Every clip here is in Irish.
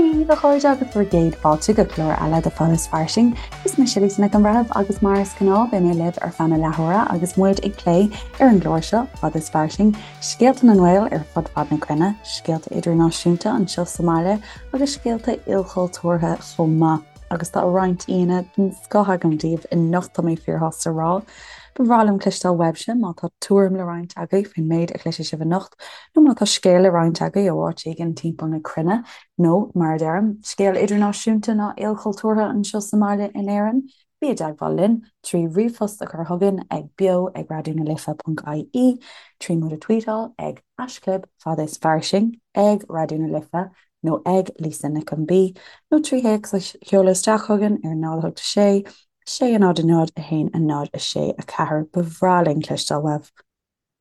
Dia daoibh, a chairde, agus bhur gcéad fáilte go clár eile de Fada is Fairsing. Is mise Lisa Nic an Bhreithimh agus mar is gnáth beidh mé libh ar feadh na leathuaire agus muid ag plé ar an gclár seo, Fada is Fairsing, scéalta na nGael ar fud fad na cruinne, scéalta idirnáisiúnta anseo sa mbaile agus scéalta ilchultúrtha chomh maith. Agus tá roinnt aíonna den scoth agam daoibh anocht, tá mé fíorshásta a rá. Ba bhreá liom cloisteáil uaibhse má tá tuairim le roinnt agaibh faoin méid a chloisfidh sibh anocht, nó má tá scéal le roinnt agaibh ó áit éigin timpeall na cruinne, nó, mar a deirim, scéal idirnáisiúnta ná ilchultúrtha anseo sa mbaile in Éirinn, bí i dteagmháil linn trí ríomhphost a chur chugainn ag beo ag raidionalife.ie, trí muid a tweetáil ag haischlib fada is fairsing ag Raidió na Life nó ag Lisa Nic an B, nó trí théacs a sheoladh isteach chugainn ar 0 8 6 6 0 0 1 0 6 4. Ba bhreá linn cloisteáil uaibh.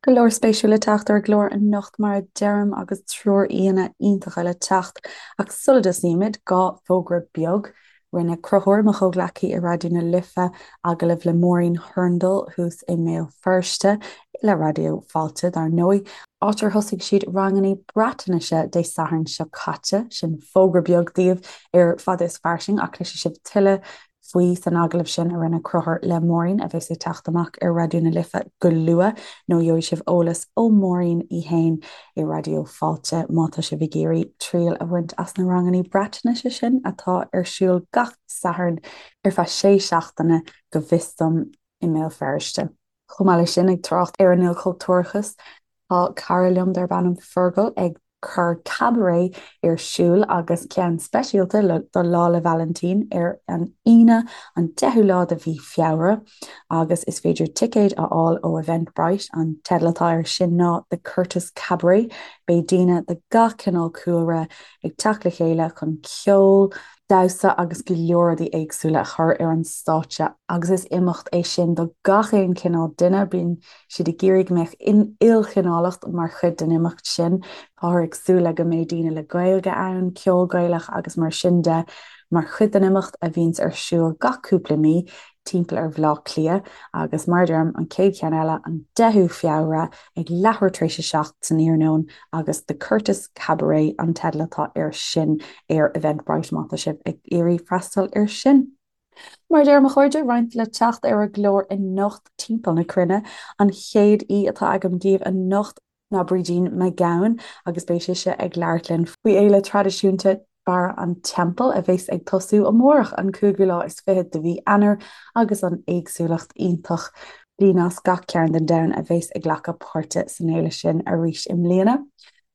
Go leor spéisiúil le teacht ar an gclár anocht mar a deirim agus triúr aíonna iontacha le teacht ach sula dtosaímid, 2 fógra beag. Rinne Conchúr, mo chomhghleacaí i Raidió na Life, agallamh le Máirín Hurndall thuas i mBéal Feirste, le Raidió Fáilte dar ndóigh, áit ar thosaigh siad ranganna Breatnaise Dé Sathairn seo caite. Sin fógra beag daoibh ar Fada is Fairsing ach cloisfidh sibh tuilleadh faoi san agallamh sin a rinne Conchúr le Máirín, a bheas ag teacht amach ar Raidió na Life go luath, nó gheobhaidh sibh eolas ó Mháirín í fhéin i Raidió Fáilte má tá sibh ag iarraidh triail a bhaint as na ranganna Breatnaise sin atá ar siúl gach Satharn ar feadh sé seachtaine go bhfios dom i mBéal Feirste. Chomh maith leis sin, ag trácht ar an ilchultúrachas, Tá cara liom darb ainm Fergal ag cur cabaret ar siúl agus ceann speisialta do Lá 'le Vailintín ar an Aoine an 10ú lá de mhí Feabhra agus is féidir ticéid a fháil ó Eventbrite. An teideal atá air sin ná The Curtis Cabaret. Beidh daoine de gach cineál cúlra ag teacht le chéile chun ceol, damhsa agus go leor rudaí éagsúla a chur ar an stáitse agus is imeacht é sin do gach aon chineál duine. Bíonn siad ag iarraidh go mbeadh ilchineálacht mar chuid den imeacht sin. Táthar ag súil le go mbeidh daoine le Gaeilge ann, ceol Gaelach agus mar sin de mar chuid den imeacht a bhíonns ar siúl gach cúpla mí timpeall ar Bhaile Átha Cliath agus mar a deirim, an chéad cheann eile an 10ú Feabhra ag leathuair tar éis a 7 san iarnóin agus The Curtis Cabaret an teideal atá air sin ar Eventbrite má tá sibh ag iarraidh freastal air sin. Mar a deirim a chairde, roinnt le teacht ar an gclár anocht timpeall na cruinne. An chéad aoi atá agam daoibh anocht ná Brídín Mac Gabhann agus beidh sise ag labhairt linn faoi fhéile traidisiúnta Barra an Teampaill a bheas ag tosú amárach an cúigiú lá is fichead de mhí Eanáir agus an éagsúlacht iontach daoine as gach cearn den domhan a bheas ag glacadh páirte san fhéile sin arís i mbliana.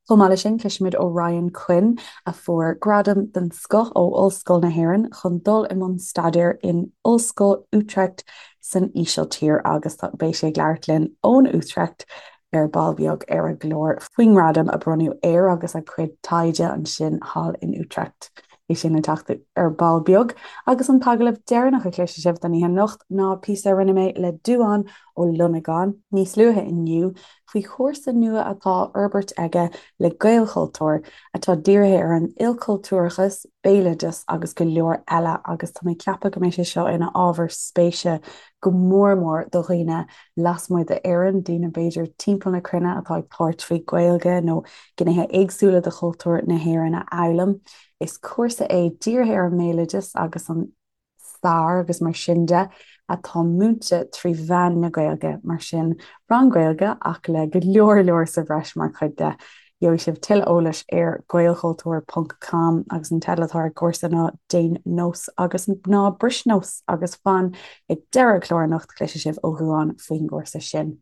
Chomh maith leis sin, cloisfimid ó Ryan Quinn, a fuair gradam den scoth ó Ollscoil na hÉireann chun dul i mbun staidéir in Ollscoil Utrecht san Ísiltír agus beidh sé ag labhairt linn ón Utrecht ar ball beag ar an gclár faoin ngradam a bronnadh air agus a chuid taighde ansin thall in Utrecht. Beidh sin le teacht ar ball beag agus an t-agallamh deireanach a chloisfidh sibh don oíche anocht ná píosa a rinne mé le Dubhán Ó Longáin níos luaithe inniu faoi chúrsa nua atá á fhorbairt aige le Gaelchultúr, atá dírithe ar an ilchultúrachas, béaloideas agus go leor eile agus tá mé ag ceapadh go mbeidh sé seo ina ábhar spéise go mór mór do dhaoine lasmuigh d'Éirinn, daoine b'fhéidir timpeall na cruinne atá ag tabhairt faoi Ghaeilge nó gnéithe éagsúla de chultúr na hÉireann a fhoghlaim. Is cúrsa é dírithe ar an mbéaloideas agus an stair agus mar sin de atá múinte trí mheán na Gaeilge, mar sin rang Gaeilge ach le go leor leor sa bhreis mar chuid de. Gheobhaidh sibh tuilleadh eolais ar gaelchultúr ponc com agus an teideal atá ar an gcúrsa ná Déan Nós agus Ná Bris Nós agus fan ag deireadh an chláir anocht cloisfidh sibh ó Dhubhán faoin gcúrsa sin.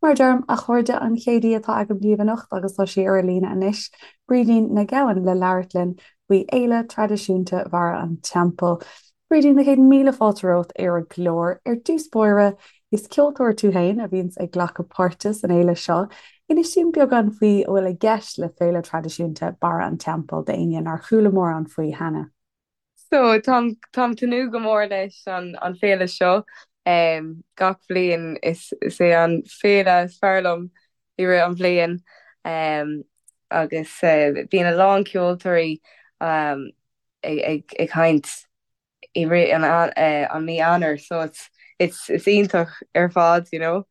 Mar a deirim, a chairde, an chéad aoi atá agam daoibh anocht agus tá sí ar an líne anois, Brídín Nic Gabhann le labhairt linn faoi fhéile traidisiúnta Bharra an Teampaill. Brídín, na chéad míle fáilte romhat ar an gclár. Ar dtús báire, is ceoltóir tú féin a bhíonns ag glacadh páirte san fhéile seo. Inis dúinn beagán faoi a bhfuil i gceist le féile traidisiúnta Barra an Teampaill d'éinne nár chuala mórán faoi cheana. So, táim táim tnúth go mór leis an an féile seo. Gach bhliain is is é an féile is fearr liom i rith an bhliain. Agus bíonn a lán ceoltóirí ag ag ag caint i rith an an mí Eanáir so it's it's it's iontach ar fad, you know.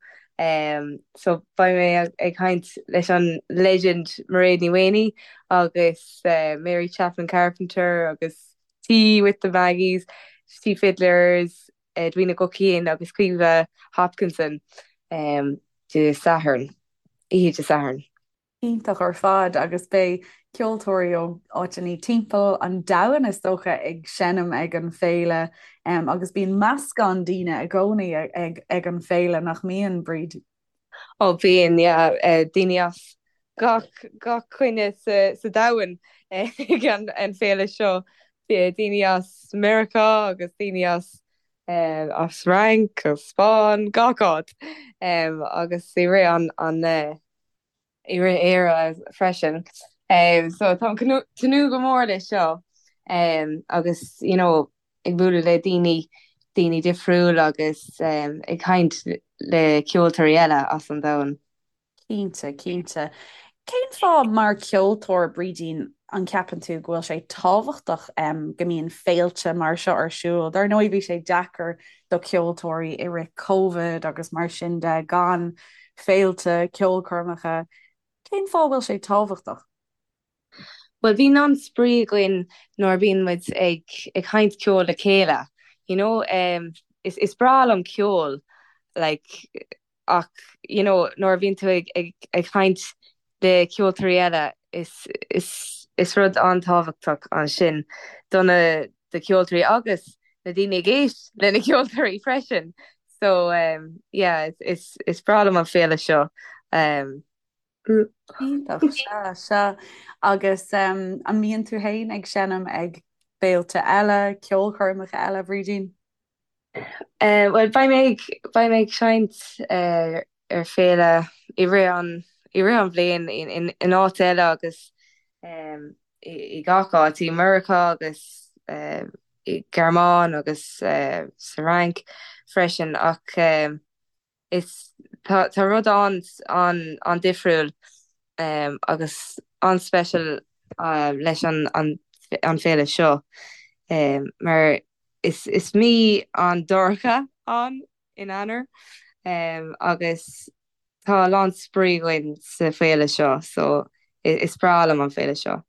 So beidh mé ag caint leis an legend Mairéad Ní Mhaonaigh agus Mary Chapman Carpenter agus Tea with the Maggies, Tea Fiddlers, Edwina Guckian agus Caoimhe Hopkinson Dé Sathairn, oíche Dé Sathairn. Iontach ar fad agus beidh ceoltóirí ó áiteanna timpeall an domhain is dócha ag seinm ag an féile agus bíonn meascán daoine i gcónaí ag an féile nach mbíonn, Bríd? Ó bíonn, yeah, daoine as gach gach cúinne sa sa domhan ag an an féile seo, daoine as Meiriceá agus daoine as as Fhrainc, as Spáinn, gach áit agus i rith an an i rith Éire freisin. So táim tnúth go mór leis seo agus you know ag bualadh le daoine, daoine difriúil agus ag caint le ceoltóirí eile as an domhan. Cinnte, cinnte. Cén fáth mar ceoltóir, Brídín, an ceapann tú go bhfuil sé tábhachtach go mbíonn féilte mar seo ar siúl? Dar ndóigh bhí sé deacair do ceoltóirí i rith Covid agus mar sin de gan féilte, ceolchoirmeacha. Cén fáth a bhfuil sé tábhachtach? Bhuel, bíonn an-spraoi againn nuair a bíonn muid ag ag caint ceol le chéile, you know. Is is breá liom ceol, like, ach, you know, nuair a bhíonn tú ag ag ag caint le ceoltóirí eile, is is is rud an-tábhachtach ansin do na do ceoltóirí agus na daoine ag éist le na ceoltóirí freisin. So, yeah, is is breá liom an féile seo. Iontach, sea, sea. Agus an mbíonn tú féin ag seinm ag féilte eile, ceolchoirmeacha eile, Bhrídín? Bhuel, beidh mé ag, beidh mé ag seinnt ar féile i rith an, i rith an bhliain in, in áit eile agus i gach áit, i Meiriceá agus i Gearmáin agus sa Fhrainc freisin ach is, tá, tá rud an, an, an-difriúil agus an-special leis an, an, an féile seo mar is, is mí an-dorcha ann in Eanáir agus tá a lán spraoi againn sa féile seo so is breá liom an féile seo.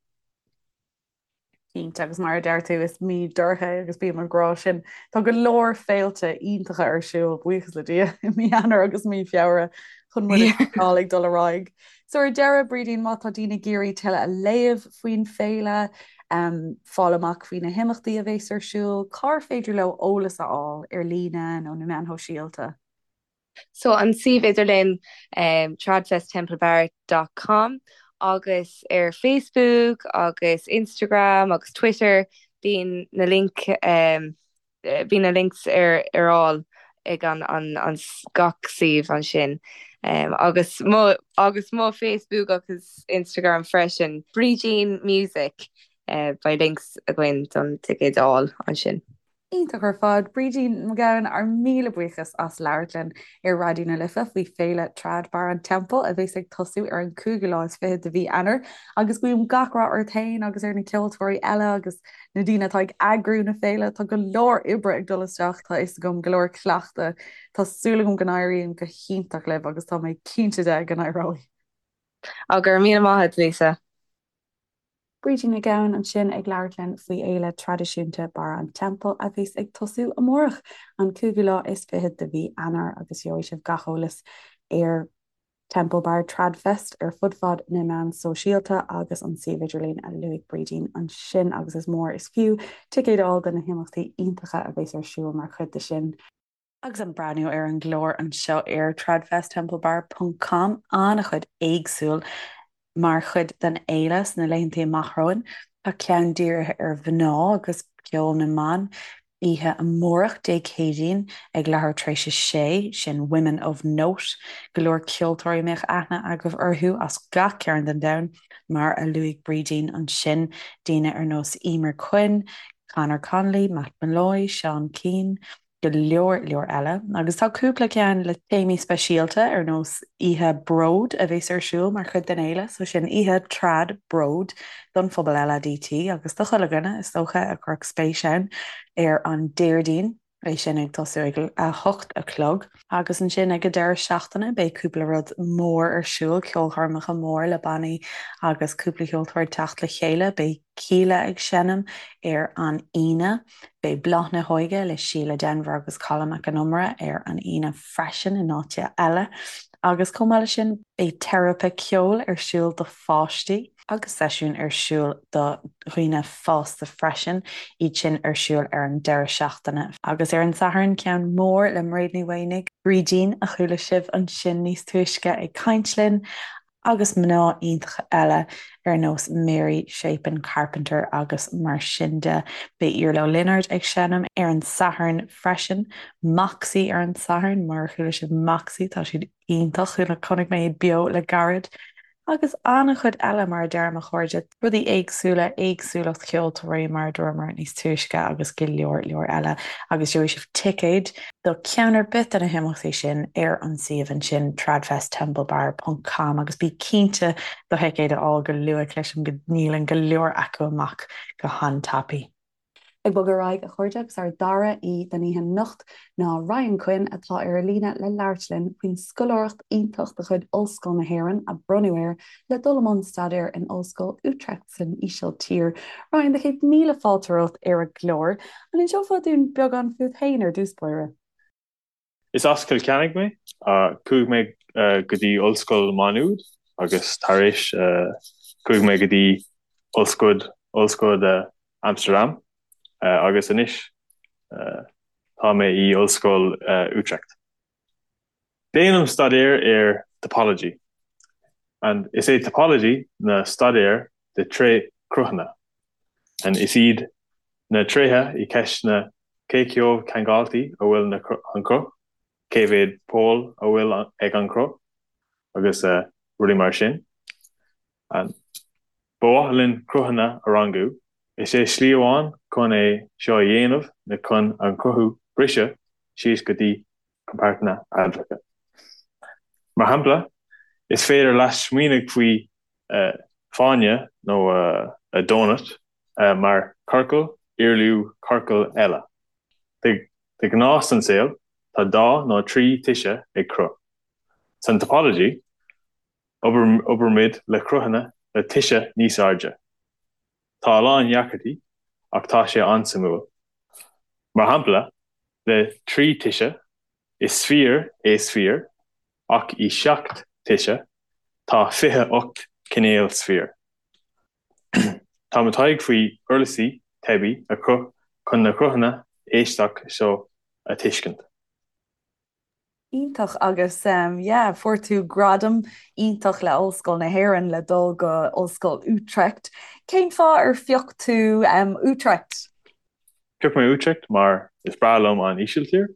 Cinnte, agus mar a deir tú, is mí dorcha é agus bím ag rá sin. Tá go leor féilte iontacha ar siúl, buíochas le Dia, i mí Eanáir agus mí Feabhra chun muid a choinneáil ag dul ar aghaidh. So ar deireadh, Brídín, má tá daoine ag iarraidh tuilleadh a léamh faoin féile, fáil amach faoi na himeachtaí a bheas ar siúl, cár féidir leo eolas a fháil ar líne nó na meáin shóisialta? So an suíomh idirlín tradfesttemplebar dot com agus ar Facebook agus Instagram agus Twitter bíonn na link bíonn na links ar ar fháil ag an an an gach suíomh ansin agus mo agus mo Facebook agus Instagram freisin Brídín Music beidh links againn don ticéid a fháil ansin. Iontach ar fad. Brídín McGowan, ár míle buíochas as labhairt linn ar Raidió na Life faoi Féile Trad Barr an Teampaill a bheas ag tosú ar an cúigiú lá is fichead de mhí Eanáir agus guím gach rath ort féin agus ar na ceoltóirí eile agus na daoine atá ag eagrú na féile. Tá go leor oibre ag dul isteach, tá a fhios agam, go leor cleachtadh. Tá súil agam go n-éiríonn go hiontach libh agus tá mé cinnte de go n-éireoidh. Á, go raibh míle maith agat, Lisa. Brídín McGowan ansin ag labhairt linn faoi fhéile traidisiúnta Barr an Teampaill a bheas ag tosú amárach, an cúigiú lá is fichead de mhí Eanáir agus gheobhaidh sibh gach eolas ar Temple Bar Tradfest ar fud fad na meán sóisialta agus an suíomh idirlín a luaigh Brídín ansin agus is mór is fiú ticéad a fháil do na himeachtaí iontacha a bheas ar siúl mar chuid de sin. Agus ag breathnú ar an gclár anseo ar tradfesttemplebar ponc com, an-chuid éagsúil mar chuid den fhéile sna laethanta amach romhainn. Tá ceann dírithe ar mhná agus ceol na mban oíche amárach, Dé Céadaoin, ag leathuair tar éis a sé, sin Women of Note. Go leor ceoltóirí a mbeadh aithne agaibh orthu as gach cearn den domhan, mar a luaigh Brídín ansin, daoine ar nós Eimear Quinn, Conor Connolly, Matt Molloy, Seán Keane, go leor leor eile. Agus tá cúpla ceann le téamaí speisialta ar nós Oíche Bród a bheas ar siúl mar chuid den fhéile, so sin oíche trad bród don phobal LADT agus do chuile dhuine is dócha a chuirfeadh spéis ann ar an Déardaoin. É sin ag tosú ag a hocht a chlog. Agus ansin ag an deireadh seachtaine beidh cúpla rud mór ar siúl, ceolchoirmeacha mór le bannaí agus cúpla ceoltóir ag teacht le chéile. Beidh Kíla ag seinm ar an Aoine. Beidh Bláth na hÓige le Síle Denvir agus Colm Mac Con Iomaire ar an Aoine freisin in áit eile. Agus chomh maith leis sin beidh teiripe ceoil ar siúl do pháistí. agus seisiún ar siúl do dhaoine fásta freisin, iad sin ar siúl ar an deireadh seachtaine. Agus ar an Satharn, ceann mór le Mairéad Ní Mhaonaigh, Brídín, a chuala sibh ansin níos túisce ag caint linn, agus mná iontacha eile ar nós Mary Chapin Carpenter agus mar sin de. Beidh Iarla Ó Lionáird ag seinm ar an Satharn freisin, Moxie ar an Satharn, mar a chuala sibh Moxie, tá siad iontach, chonaic mé iad beo le gairid. Agus an-chuid eile, mar a deir mo chairde, rudaí éagsúla, éagsúlacht cheoltóirí, mar a dúramar níos túisce, agus go leor leor eile. Agus gheobhaidh sibh ticéid do cheann ar bith de na himeachtaí sin ar an suíomh ansin, tradfesttemplebar ponc com, agus bí cinnte do thicéad a fháil go luath, cloisim go ndíolann go leor acu amach go han-tapaidh. Ag bogadh ar aghaidh, a chairde, agus ár dara aoi don oíche anocht ná Ryan Quinn atá ar an líne le labhairt linn faoin scoláireacht iontach de chuid Ollscoil na hÉireann a bronnadh air le dul i mbun staidéir in Ollscoil Utrecht san Ísiltír. Ryan, do chéad míle fáilte romhat ar an gclár. An inseofá dúinn beagán fút féin ar dtús báire? Is as Cill Chainnigh mé. Chuaigh mé go dtí Ollscoil Má Nuad agus tar éis chuaigh mé go dtí Ollscoil Ollscoil Amsterdam agus anois tá mé i Ollscoil Utrecht. Déanaim staidéar ar topology and is é topology na staidéar de tréchruthanna and is iad na tréithe i gceist na cé chomh ceangailte a bhfuil na an cruth, cé mhéad pól a bhfuil ag an cruth agus rudaí mar sin. And ba mhaith linn cruthanna a rangú. Is é slí amháin chun é seo a dhéanamh na chun an cruth a briseadh síos go dtí compartanna admhacha. Mar shampla, is féidir leat smaoineamh faoi fáinne nó donut mar ciorcal irliú ciorcal eile. De ghnáth san saol, tá dá nó 3 toise ag cruth. San topology, oibrímid le cruthanna le toise níos airde. Tá a lán deacrachtaí, ach tá sé an-suimiúil. Mar shampla, le 3 toise, is sféar é sféar, ach i 7 toise, tá 28 cineál sféar. Tá mo taighde faoi uirlisí teibí a chruthú chun na cruthanna aisteach seo a tuiscint. Iontach agus yeah fuair tú gradam iontach le Ollscoil na hÉireann le dul go Ollscoil Utrecht. Cén fáth ar phioc tú Utrecht? Phioc mé Utrecht mar is breá liom an Ísiltír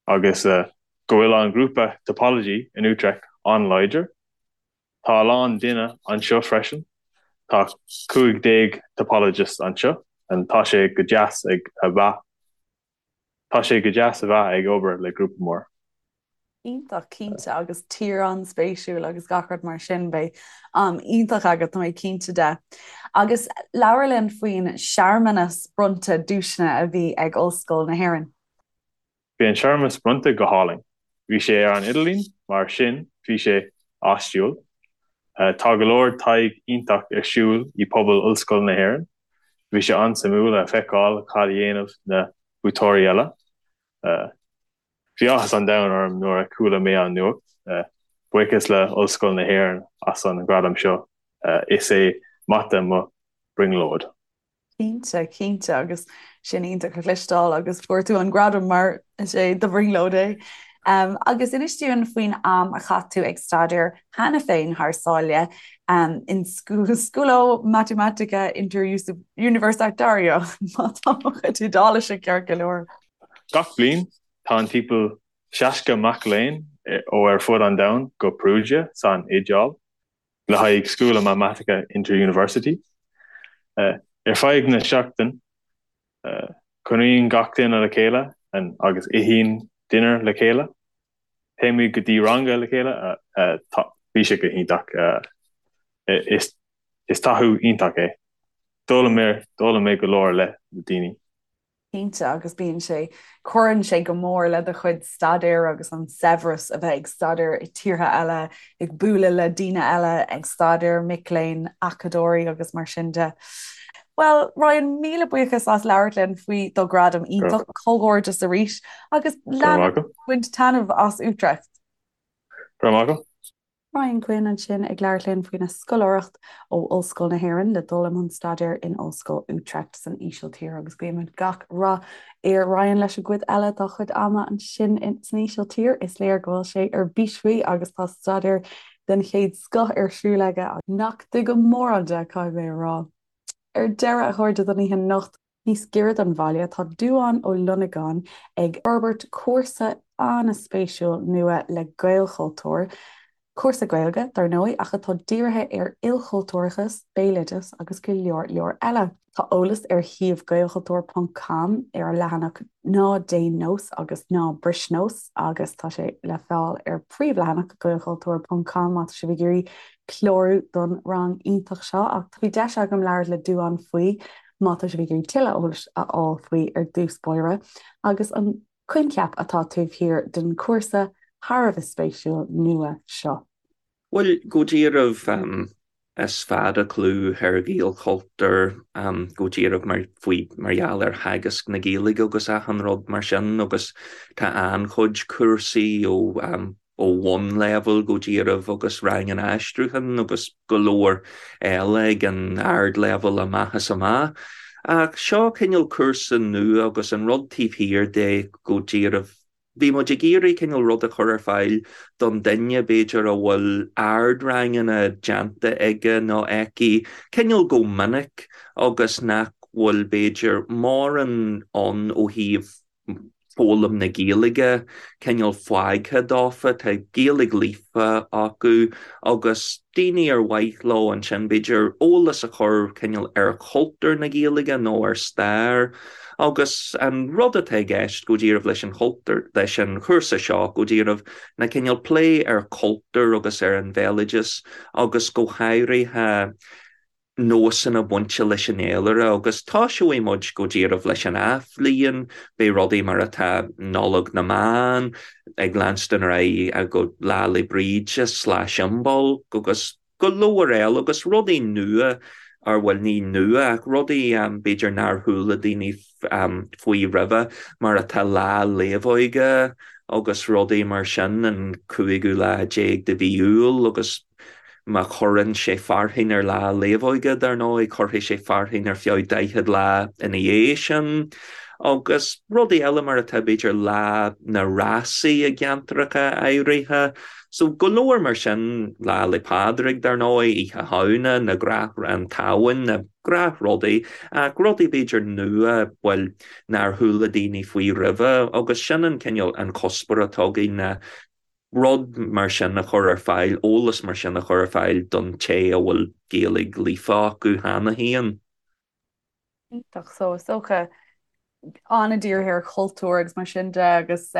agus go bhfuil an grúpa topology in Utrecht an-láidir. Tá a lán duine anseo freisin. Tá 15 topologist anseo and tá sé go deas ag a bheith tá sé go deas a bheith ag obair le grúpa mór. Iontach, cinnte, agus tír an-spéisiúil agus gach rud mar sin. Beidh am iontach agat, tá mé cinnte de. Agus labhair linn faoin searmanas bronnta duaiseanna a bhí ag Ollscoil na hÉireann. Bhí an searmanas bronnta go hálainn. Bhí sé ar an idirlíon, mar sin bhí sé áisiúil. Tá go leor taighde iontach ar siúl i pobal Ollscoil na hÉireann. Bhí sé an-suimiúil a feiceáil cad a dhéanamh na buaiteoirí eile. Bhí áthas an domhain orm nuair a chuala mé an nuacht. Buíochas le Ollscoil na hÉireann as an ghradam seo. Is é mata mo brionglóid. Cinnte, cinnte, agus sin iontach a chloisteáil agus fuair tú an gradam mar is é do bhrionglóid é. Um, agus inis dúinn faoin am a chaith tú ag staidéar cheana féin thar sáile um, in Scuola Matematica Interuniversitaria má tá mo chuid Iodáilise ceart go leor. Gach bliain, tá an timpeall 60 mac léinn ó ar fud an domhain go Perugia san Iodáil. le haghaidh Scuola Matematica Interuniversity. Ar feadh na seachtain, cónaíonn gach duine le chéile agus itheann dinnéar le chéile. Téimid go dtí ranga le chéile. Bhí sé go hiontach. Is taithí iontach é. D'fhoghlaim mé go leor le daoine. Cinnte, agus bíonn sé, cuireann sé go mór le do chuid staidéir agus an saibhreas a bheith ag staidéar i tíortha eile, ag bualadh le daoine eile ag staidéar, mic léinn, acadóirí agus mar sin de. Bhuel, Ryan, míle buíochas as labhairt linn faoi do ghradam iontach, comhghairdeas arís agus lean ag baint taitneamh as Utrecht. Go raibh maith agat. Ryan Quinn ansin ag labhairt linn faoina scoláireacht ó Ollscoil na hÉireann le dul i mbun staidéir in Ollscoil Utrecht san Ísiltír agus guímid gach rath ar Ryan leis an gcuid eile dá chuid ama ansin san Ísiltír. Is léir go bhfuil sé ar bís faoi agus tá staidéar den chéad scoth ar siúl aige nach dtuigim mórán de, caithfidh mé a rá. Ar deireadh, a chairde, don oíche anocht, Níos giorra don bhaile, tá Dubhán Ó Longáin ag forbairt cúrsa an-spéisiúil nua le Gaelchultúr, cúrsa Gaeilge, dar ndóigh, ach atá dírithe ar ilchultúrachas, béaloideas agus go leor leor eile. Tá eolas ar shuíomh gaelchultúr ponc com ar an leathanach Ná Déan Nós agus Ná Bris Nós agus tá sé le fáil ar príomhleathanach gaelchultúr ponc com má tá sibh ag iarraidh clárú don rang iontach seo. Ach bhí deis agam labhairt le Dubhán faoi má tá sibh ag iarraidh tuilleadh eolais a fháil faoi ar dtús báire, agus an coincheap atá taobh thiar den chúrsa thar a bheith spéisiúil nua seo. Bhuel, go díreach, is fada clú ar Ghaelchultúr, go díreach mar, faoi, mar gheall ar theagasc na Gaeilge agus achan rud mar sin agus tá an-chuid cúrsaí ó ó bhunleibhéal go díreach agus ranganna aistriúcháin agus go leor eile ag an ardleibhéal amach is amach. Ach seo cineál cúrsa nua agus an rud taobh thiar de go díreach, bhí muid ag iarraidh cineál rud a chur ar fáil don duine b'fhéidir a bhfuil ardranganna déanta aige nó aici cineál go minic agus nach bhfuil b'fhéidir mórán ann ó thaobh foghlaim na Gaeilge cineál fágtha dófa, tá Gaeilge líofa acu agus daoine ar mhaith leo ansin b'fhéidir eolas a chur cineál ar chultúr na Gaeilge nó ar stair agus an rud atá i gceist go díreach leis an chultúr, leis an chúrsa seo go díreach ná cineál plé ar chultúr agus ar an bhéaloideas agus go háirithe nósanna bainte leis an fhéilire agus toiseoidh muid go díreach leis an athbhliain, beidh rudaí mar atá Nollaig na mBan ag leanstan ar aghaidh go Lá 'le Bríde slash Imbolc agus go leor eile agus rudaí nua, or bhuel ní nua ach rudaí b'fhéidir nár chuala daoine faoi roimhe mar atá Lá Naomhóige agus rudaí mar sin an cúigiú lá déag de mhí Iúil agus Má chuireann sé fearthainn ar Lá Naomhóige, dar ndóigh, cuirfidh sé fearthainn ar feadh 40 lá ina dhiaidh sin. Agus rudaí eile mar atá, b'fhéidir, Lá na Rásaí i gceantracha áirithe. So, go leor mar sin, Lá 'le Pádraig, dar ndóigh, Oíche Shamhna, na gnáth, an tSamhain, na gnáthrudaí, ach rudaí b'fhéidir nua, bhuel, nár chuala daoine faoi roimhe. Agus sin an cineál, an cuspóir atá againn ná rud mar sin a chur ar fáil, eolas mar sin a chur ar fáil don té a bhfuil Gaeilge líofa acu cheana féin. Iontach. So is dócha an-dírithe ar chultúr agus mar sin de agus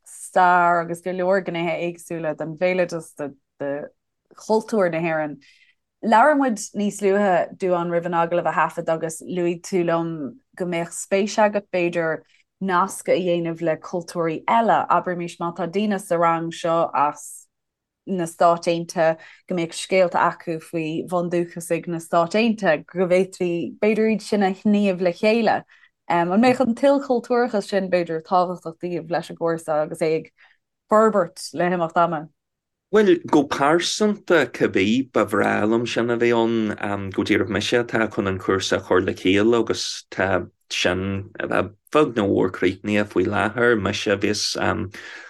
stair agus go leor gnéithe éagsúla den bhéaloideas, de chultúr na hÉireann. Labhair muid níos luaithe, Dubhán, roimh an agallamh a thaifead agus luaigh tú liom go mbeadh spéis agat, b'fhéidir, nasc a dhéanamh le cultúirí eile. Abraimis má tá daoine sa rang seo as na Stáit Aontaithe, go mbeadh scéalta acu faoi bhundúchasaigh na Stát Aontaithe, go bhféadfaí, b'fhéidir, iad sin a shníomh le chéile. An mbeadh an t-ilchultúrachas sin, b'fhéidir, tábhachtach daoibh leis an gcúrsa agus é ag forbairt le himeacht ama? Bhuel, go pearsanta, cibé, ba bhreá liom sin a bheith ann. Go díreach mise atá chun an cúrsa a chur le chéile agus tá sin beag nó mór críochnaithe faoi láthair. Mise a bheas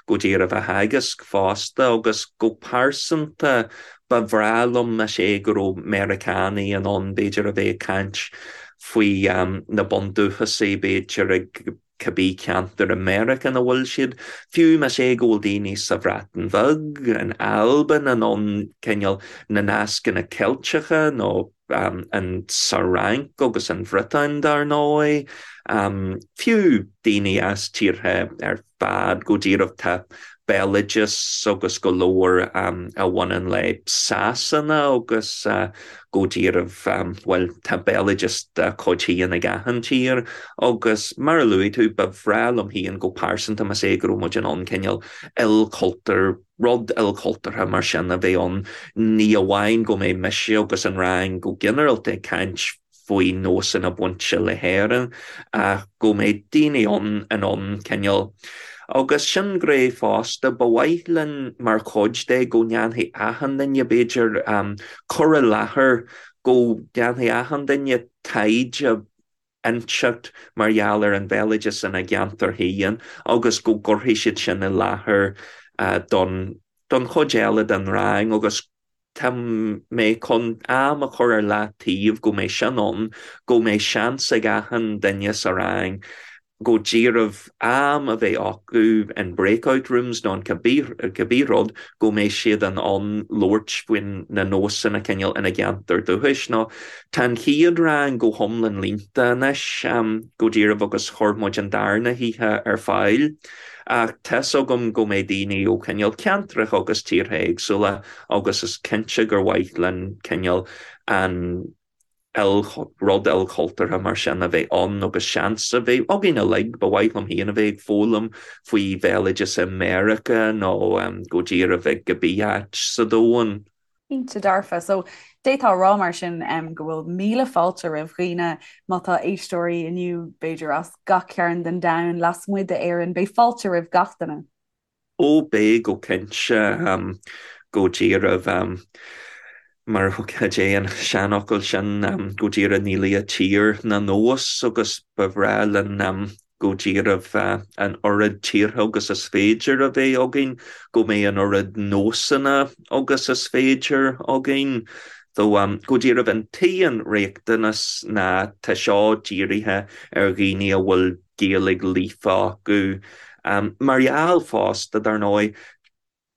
go díreach á theagasc fosta agus go pearsanta ba bhreá liom más é go raibh Meiriceánaigh in ann b'fhéidir a bheith ag caint faoi na bundúchasaigh b'fhéidir ag cibé ceantar i Meiriceá ina bhfuil siad, fiú más é go bhfuil daoine sa Bhreatain Bheag, in Albain, in ann cineál na nascanna Ceilteacha nó an sa Fhrainc agus an Bhriotáin dar ndóigh, fiú daoine as tíortha ar fad go díreach tá. béaloideas agus go leor a bhaineann le Sasana agus go díreach, bhuel, tá béaloideas dá cuid féin ag achan tír agus mar a luaigh tú, ba bhreá liom féin go pearsanta más é go raibh muid in ann cineál ilchultúr, rud ilchultúrtha mar sin a bheith ann, ní amháin go mbeidh mise agus an rang go ginearálta ag caint faoi nósanna bainte le hÉirinn ach go mbeidh daoine ann in ann cineál agus sin gné fosta ba mhaith linn mar chuid de go ndéanfaidh achan duine b'fhéidir cur i láthair go ndéanfaidh achan duine taighde inteacht mar gheall ar an bhéaloideas ina gceantar féin agus go gcuirfidh siad sin i láthair don don chuid eile den rang agus Tá mé chun am a chur ar leataobh go mbeidh sin ann, go mbeidh seans ag achan duine sa rang go díreach am a bheith acu in breakout rooms nó in cibé rud go mbeidh siad in ann labhairt faoi na nósanna cineál ina gceantar dúchais. Nó tá an chéad rang go hiomlán líonta anois go díreach agus chuir muid an darna hoíche ar fáil. Ach tá's agam go mbeidh daoine ó chineál ceantracha agus tíortha éagsúla agus is cinnte gur mhaith linn cineál an rud ilchultúrtha mar sin a bheith ann agus seans a bheith againn uilig, ba mhaith liom féin a bheith ag foghlaim faoi bhéaloideas i Meiriceá nó go díreach ag cibé áit sa domhan. Cinnte dearfa. So, d'fhéadfá a rá mar sin go bhfuil míle fáilte roimh dhaoine, má tá éisteoirí inniu, b'fhéidir as gach cearn den domhan, lasmuigh d'Éirinn, beidh fáilte roimh gach duine. Ó beidh go cinnte, go díreach mar cad é an seanfhocal sin, go díreach níl a tír ná nós agus ba bhreá linn go díreach an oiread tíortha agus is féidir a bheith againn, go mbeidh an oiread nósanna agus is féidir againn. So, go díreach an t-aon riachtanas ná tá seo dírithe ar dhaoine a bhfuil Gaeilge líofa acu. Mar gheall fosta, dar ndóigh,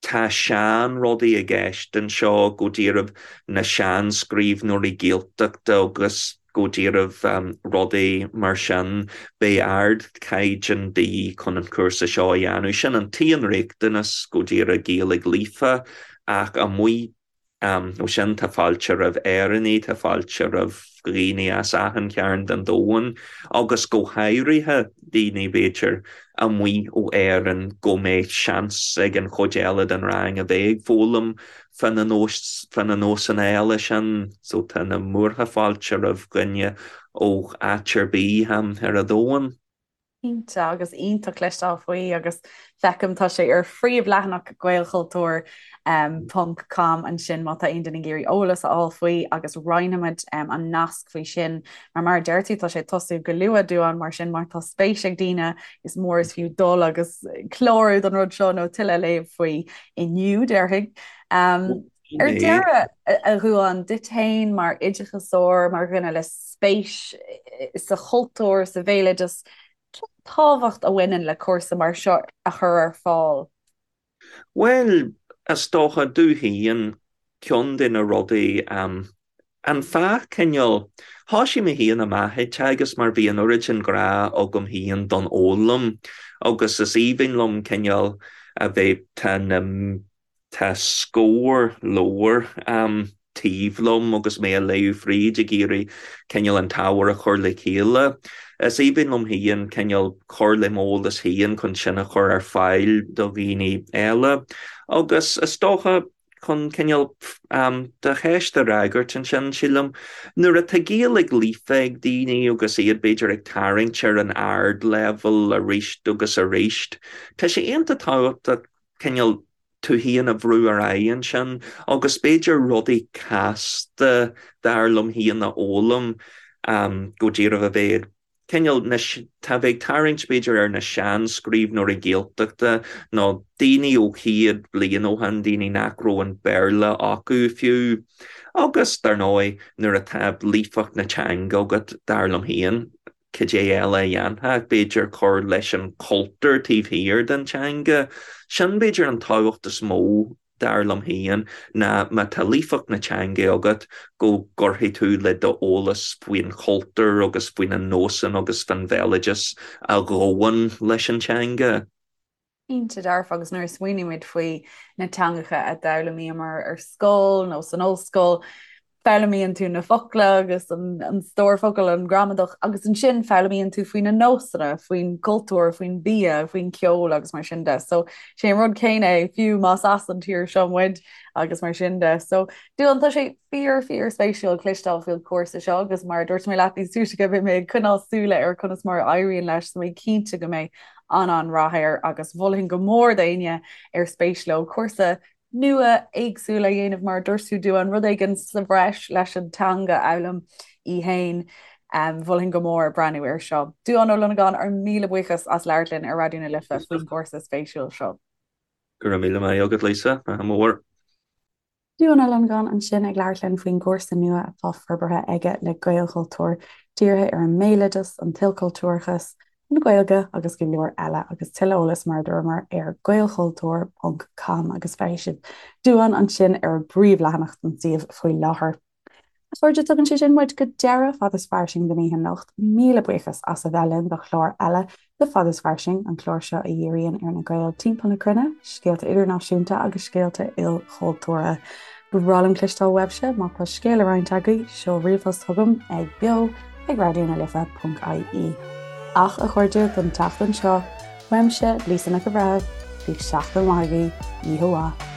Tá sean-rudaí i gceist anseo, go díreach na sean-scríbhneoirí Gaeltachta agus go díreach rudaí mar sin. Beidh ardchaighdeán de dhíth chun an cúrsa seo a dhéanamh. Sin an t-aon riachtanas, go díreach Gaeilge líofa, ach amuigh Ó sin, tá fáilte roimh Éireannaigh, tá fáilte roimh dhaoine as achan chearn den domhan, agus go háirithe daoine, b'fhéidir, amuigh ó Éirinn, go mbeidh seans ag an chuid eile den rang a bheith ag foghlaim fá na fá na nósanna eile sin. So tá na múrtha fáilte roimh dhuine ó áit ar bith ar an domhan. Cinnte, agus iontach cloisteáil faoi agus feicim tá sé ar phríomhleathanach Gaelchultúr ponc com ansin má tá aon duine ag iarraidh eolas a fháil faoi agus roinnfimid an nasc faoi sin mar mar a deir tú tá sé ag tosú go luath Dubhán mar sin má tá spéis ag daoine is mór is fiú dul agus clárú don rud seo nó tuilleadh a léamh faoi inniu déarfainn. Ar deireadh, a Dhubháin, duit féin mar oideachasóir, mar dhuine le spéis sa chultúr, sa bhéaloideas, cén tábhacht a bhaineann le cúrsa mar seo a chur ar fáil? Bhuel, is dócha, domh féin, ceann de na rudaí, an fáth cineál, thoisigh mé féin amach ag teagasc mar bhí an oiread sin grá agam féin don fhoghlaim agus is aoibhinn liom cineál a bheith, tá na, Tá scór leabhar taobh liom agus mé a léamh fríd ag iarraidh cineál an t-ábhar a chur le chéile. Is aoibhinn liom féin cineál cur le m'eolas féin chun sin a chur ar fáil do dhaoine eile. Agus is dócha chun cineál do cheist a fhreagairt ansin, sílim, nuair atá Gaeilge líofa ag daoine agus iad b'fhéidir ag tarraingt ar an ardleibhéal arís agus arís, tá sé iontach tábhachtach cineál tú féin a bhrú ar aghaidh ansin agus b'fhéidir rudaí casta dar liom féin a fhoghlaim go díreach a bheith cineál na tá bheith ag tarraingt b'fhéidir ar na seanscríbhneoirí Gaeltachta nó daoine ó chéad bliain ó shin, daoine nach raibh an Béarla acu fiú. Agus dar ndóigh nuair atá líofacht na teanga agat dar liom féin, Cad é eile a dhéanfá ach b'fhéidir cur leis an chultúr taobh thiar den teanga. Sin b'fhéidir an tábhacht is mó, dar liom féin, ná má tá líofacht na teanga agat, go gcuirfidh tú le d'eolas faoin chultúr agus faoi na nósanna agus faoin bhéaloideas a ghabhann leis an teanga. Cinnte dearfa agus nuair a smaoinímid faoi na teangacha a d'fhoghlaimíomar ar scoil nó san ollscoil, foghlaimíonn tú na focla agus an stór focal, an gramadach agus ansin foghlaimíonn tú faoi na nósanna, faoin gcultúr, faoin bia, faoin ceol agus mar sin de. So sé an rud céanna é fiú más as an tír seo muid agus mar sin de. So Dúán tá sé fíor fíor spéisiúil cloisteáil faoin chúrsa seo agus mar a dúirt mé leat níos túisce beidh mé ag coinneáil súile ar conas mar a éiríonn leis so mé cinnte go mbeidh an-an-rath air agus mholfainn go mór d'éinne ar spéis leo cúrsa nua éagsúil a dhéanamh mar a dúirt tú Dúán, rud éigin sa bhreis leis an teanga a fhoghlaim í fhéin. Mholfainn go mór breathnú air seo. Dúán Ó Longáin, ár míle buíochas as labhairt linn ar Raidió na Life faoin gcúrsa spéisiúil seo. Go raibh míle maith agat Lisa, ádh mór. Dúán Ó Longáin ansin ag labhairt linn faoin gcúrsa nua atá forbartha aige le Gaelchultúr, dírithe ar an mbéaloideas, an t-ilchultúrachas, an Ghaeilge agus go leor eile agus tuilleadh eolais mar a dúramar ar gaelchultúr ponc com agus feicfidh sibh Dúán ansin ar an bpríomhleathanach den suíomh faoi láthair. A chairde, tugann sé sin muid go deireadh Fad is Fairsing don oíche anocht. Míle buíochas as a bheith linn do chlár eile de Fad is Fairsing, an clár seo a dhíríonn ar na Gaeil timpeall na cruinne, scéalta idirnáisiúnta agus scéalta ilchultúrtha. Ba bhreá liom cloisteáil uaibhse, má tá scéal le roinnt agaibh, seol ríomhphost chugam ag beo ag raidionalife.ie. Ach, a chairde, don tseachtain seo, uaimse, Lisa Nic an Bhreithimh, bíodh seachtain mhaith agaibh, oíche mhaith.